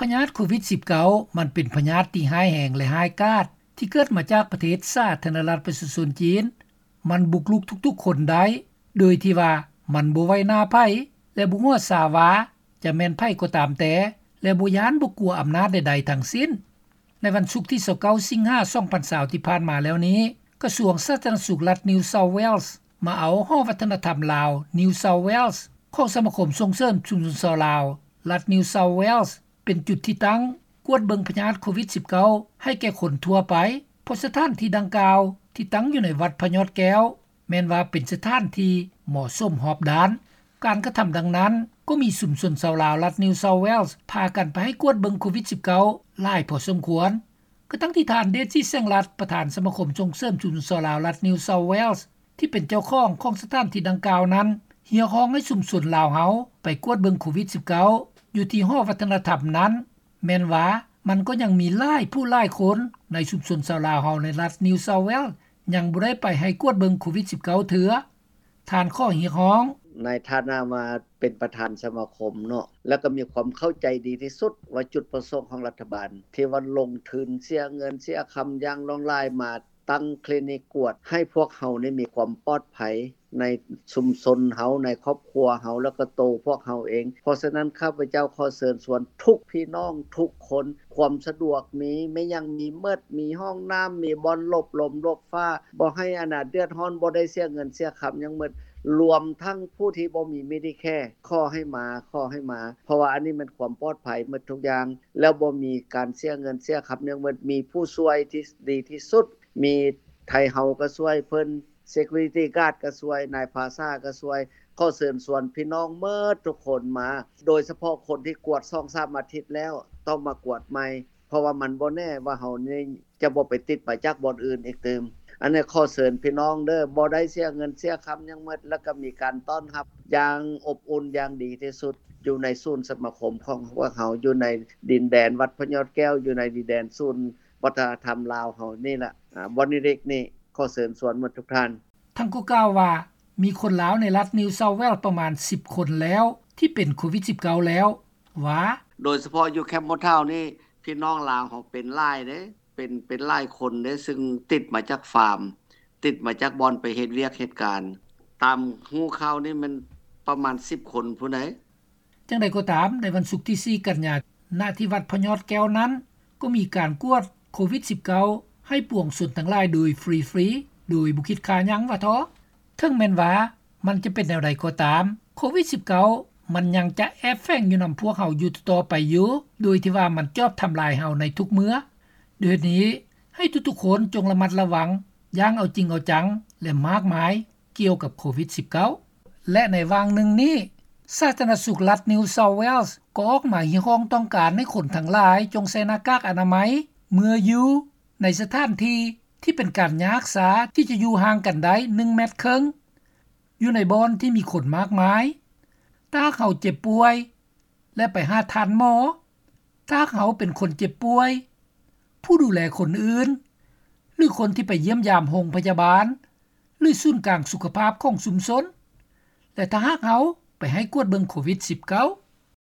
ພະຍາດໂຄວິດ-19 ມັນເປັນພະຍາດທີ່ຮ້າຍແຮງ ແລະ ຮ້າຍກາດ ທີ່ເກີດມາຈາກປະເທດສາທາລະນະລັດປະຊາຊົນຈີນ. ມັນບຸກລຸກທຸກໆຄົນໄດ້ ໂດຍທີ່ວ່າມັນບໍ່ໄຫວໜ້າໃຜ ແລະ ບໍ່ຫົວຊາວ່າຈະແມ່ນໃຜກໍຕາມແຕ່ ແລະ ບໍ່ຢ້ານບໍ່ກົວອຳນາດໃດໆທັງສິ້ນ. ໃນວັນສຸກທີຊາວເກົ້າ ສິງຫາ ສອງພັນຊາວ ທີ່ຜ່ານມາແລ້ວນີ້, ກະຊວງສາທາລະນະສຸກລັດ New South Wales ມາເອົາຫໍວັດທະນະທຳລາວ New South Wales ຂອງສະມາຄົມສົ່ງເສີມຊຸມຊົນຊາວລາວລັດ New South Wales ເປັນຈຸດທີ່ຕັ້ງກວດເບິ່ງພະຍາດໂຄວິດ-19 ໃຫ້ແກ່ຄົນທົ່ວໄປ, ເພາະສະຖານທີ່ດັ່ງກ່າວທີ່ຕັ້ງຢູ່ໃນວັດພະຍອດແກ້ວ ແມ່ນວ່າເປັນສະຖານທີ່ເໝາະສົມຮອບດ້ານ. ການກະທຳດັ່ງນັ້ນ ກໍມີຊຸມຊົນຊາວລາວລັດ New South Wales ພາກັນໄປໃຫ້ກວດເບິ່ງໂຄວິດ-19 ຫຼາຍພໍສົມຄວນ. ກະທັ່ງທີ່ທ່ານ ເດດຈິດ ແສງລັດ ປະທານສະມາຄົມສົ່ງເສີມຊຸມຊົນຊາວລາວລັດ New South Wales ທີ່ເປັນເຈົ້າຂອງຂອງສະຖານທີ່ດັ່ງກ່າວນັ້ນ ຮຽກຮ້ອງໃຫ້ຊຸມຊົນລາວເຮົາໄປກວດເບິ່ງໂຄວິດ-19 ຢູ່ທີ່ຫໍວັດທະນະທຳນັ້ນ, ແມ່ນວ່າມັນກໍຍັງມີຫຼາຍຜູ້ຫຼາຍຄົນໃນຊຸມຊົນຊາວລາວເຮົາໃນລັດ New South Wales ຍັງບໍ່ໄດ້ໄປໃຫ້ກວດເບິ່ງໂຄວິດ-19 ເທື່ອ. ທ່ານຂໍຮຽກຮ້ອງ. ໃນຖານະວ່າເປັນປະທານສະມາຄົມເນາະ ແລ້ວກໍມີຄວາມເຂົ້າໃຈດີທີ່ສຸດວ່າຈຸດປະສົງຂອງລັດຖະບານທີ່ວ່າລົງທຶນເສຍເງິນເສຍຄຳຢ່າງຫຼວງຫຼາຍມາຕັ້ງຄລີນິກກວດໃຫ້ພວກເຮົານີ້ມີຄວາມປອດໄພໃນຊຸມຊົນເຮົາ, ໃນຄອບຄົວເຮົາ ແລ້ວກໍໂຕພວກເຮົາເອງ. ເພາະສະນັ້ນ ຂ້າພະເຈົ້າຂໍເຊີນຊວນທຸກພີ່ນ້ອງທຸກຄົນ, ຄວາມສະດວກມີ, ແມ່ນຫຍັງມີໝົດ, ມີຫ້ອງນ້ຳ, ມີບ່ອນຫຼົບລົມຫຼົບຟ້າ, ບໍ່ໃຫ້ອັນນ່າເດືອດຮ້ອນ, ບໍ່ໄດ້ເສຍເງິນເສຍຄຳຫຍັງໝົດ, ລວມທັງຜູ້ທີ່ບໍ່ມີ Medicare ຂໍໃຫ້ມາ, ຂໍໃຫ້ມາ, ເພາະວ່າອັນນີ້ແມ່ນຄວາມປອດໄພໝົດທຸກຢ່າງ, ແລ້ວບໍ່ມີການເສຍເງິນເສຍຄຳຫຍັງໝົດ, ມີຜູ້ຊ່ວຍທີ່ດີທີ່ສຸດ, ມີໄທເຮົາກໍຊ່ວຍເພິ່ນ, Security Guard ກໍຊ່ວຍ, ນາຍພາສາກໍຊ່ວຍ. ຂໍເຊີນຊວນພີ່ນ້ອງໝົດທຸກຄົນມາ, ໂດຍສະເພາະຄົນທີ່ກວດສອງສາມອາທິດແລ້ວ ຕ້ອງມາກວດໃໝ່, ເພາະວ່າມັນບໍ່ແນ່ວ່າເຮົານີ້ຈະບໍ່ໄປຕິດມາຈາກບ່ອນອື່ນອີກຕື່ມ. ອັນນີ້ຂໍເຊີນພີ່ນ້ອງເດີ້, ບໍ່ໄດ້ເສຍເງິນເສຍຄຳຫຍັງໝົດ, ແລ້ວກໍມີການຕ້ອນຮັບຢ່າງອົບອຸ່ນຢ່າງດີທີ່ສຸດ ຢູ່ໃນສູນສະມາຄົມຂອງພວກເຮົາ, ຢູ່ໃນດິນແດນວັດພະຍອດແກ້ວ, ຢູ່ໃນດິນແດນສູນວັດທະນະທຳລາວເຮົານີ້ລະ, ອາ, ບ່ອນເລັກໆນີ້. ຂໍເຊີນຊວນໝົດທຸກທ່ານ. ທ່ານກໍກ່າວວ່າ ມີຄົນລາວໃນລັດ New South Wales ປະມານສິບຄົນແລ້ວ ທີ່ເປັນໂຄວິດ-19 ແລ້ວ ວ່າ ໂດຍສະເພາະຢູ່ Campbelltown ນີ້ ພີ່ນ້ອງລາວເຮົາເປັນຫຼາຍເດ້, ເປັນ, ເປັນຫຼາຍຄົນເດ້, ຊຶ່ງຕິດມາຈາກຟາມ, ຕິດມາຈາກບ່ອນໄປເຮັດວຽກເຮັດການ. ຕາມຮູ້ຂ່າວນີ້ແມ່ນປະມານສິບຄົນພຸ້ນໃດ໋. ຢ່າງໃດກໍຕາມ, ໃນວັນສຸກທີສີ່ ກັນຍາ ນະທີ່ວັດພະຍອດແກ້ວນັ້ນ ກໍມີການກວດໂຄວິດ-19 ໃຫ້ປວງຊົນທັງຫຼາຍໂດຍຟຣີໆ ໂດຍບໍ່ຄິດຄ່າຫຍັງວ່າເທາະ. ເຖິງແມ່ນວ່າມັນຈະເປັນແນວໃດກໍຕາມ, ໂຄວິດ-19 ມັນຍັງຈະແອບແຝງຢູ່ນຳພວກເຮົາຢູ່ຕໍ່ໄປຢູ່, ໂດຍທີ່ວ່າມັນຈອບທຳລາຍເຮົາໃນທຸກເມື່ອ. ດ້ວຍເຫດນີ້, ໃຫ້ທຸກໆຄົນຈົ່ງລະມັດລະວັງຢ່າງເອົາຈິງເອົາຈັງ ແລະ ມາກມາຍ ກ່ຽວກັບໂຄວິດ-19. ແລະ ໃນຫວ່າງໜຶ່ງນີ້, ສາທາລະນະສຸກລັດ New South Wales ກໍອອກມາຮຽກຮ້ອງຕ້ອງການໃຫ້ຄົນທັງຫຼາຍຈົ່ງໃສ່ໜ້າກາກອະນາໄມເມື່ອຢູ່ໃນສະຖານທີ່ທີ່ເປັນການຍາຮັກສາທີ່ຈະຢູ່ຫ່າງກັນໄດ້ໜຶ່ງແມັດເຄິ່ງ ຢູ່ໃນບ່ອນທີ່ມີຄົນມາກມາຍ. ຖ້າຫາກເຮົາເຈັບປ່ວຍ ແລະ ໄປຫາທ່ານໝໍ, ຖ້າຫາກເຮົາເປັນຄົນເຈັບປ່ວຍ, ຜູ້ດູແລຄົນອື່ນ ຫຼື ຄົນທີ່ໄປຢ້ຽມຢາມໂຮງພະຍາບານ ຫຼື ສູນກາງສຸຂະພາບຂອງຊຸມຊົນ ແລະ ຖ້າຫາກເຮົາໄປໃຫ້ກວດເບິ່ງໂຄວິດ-19,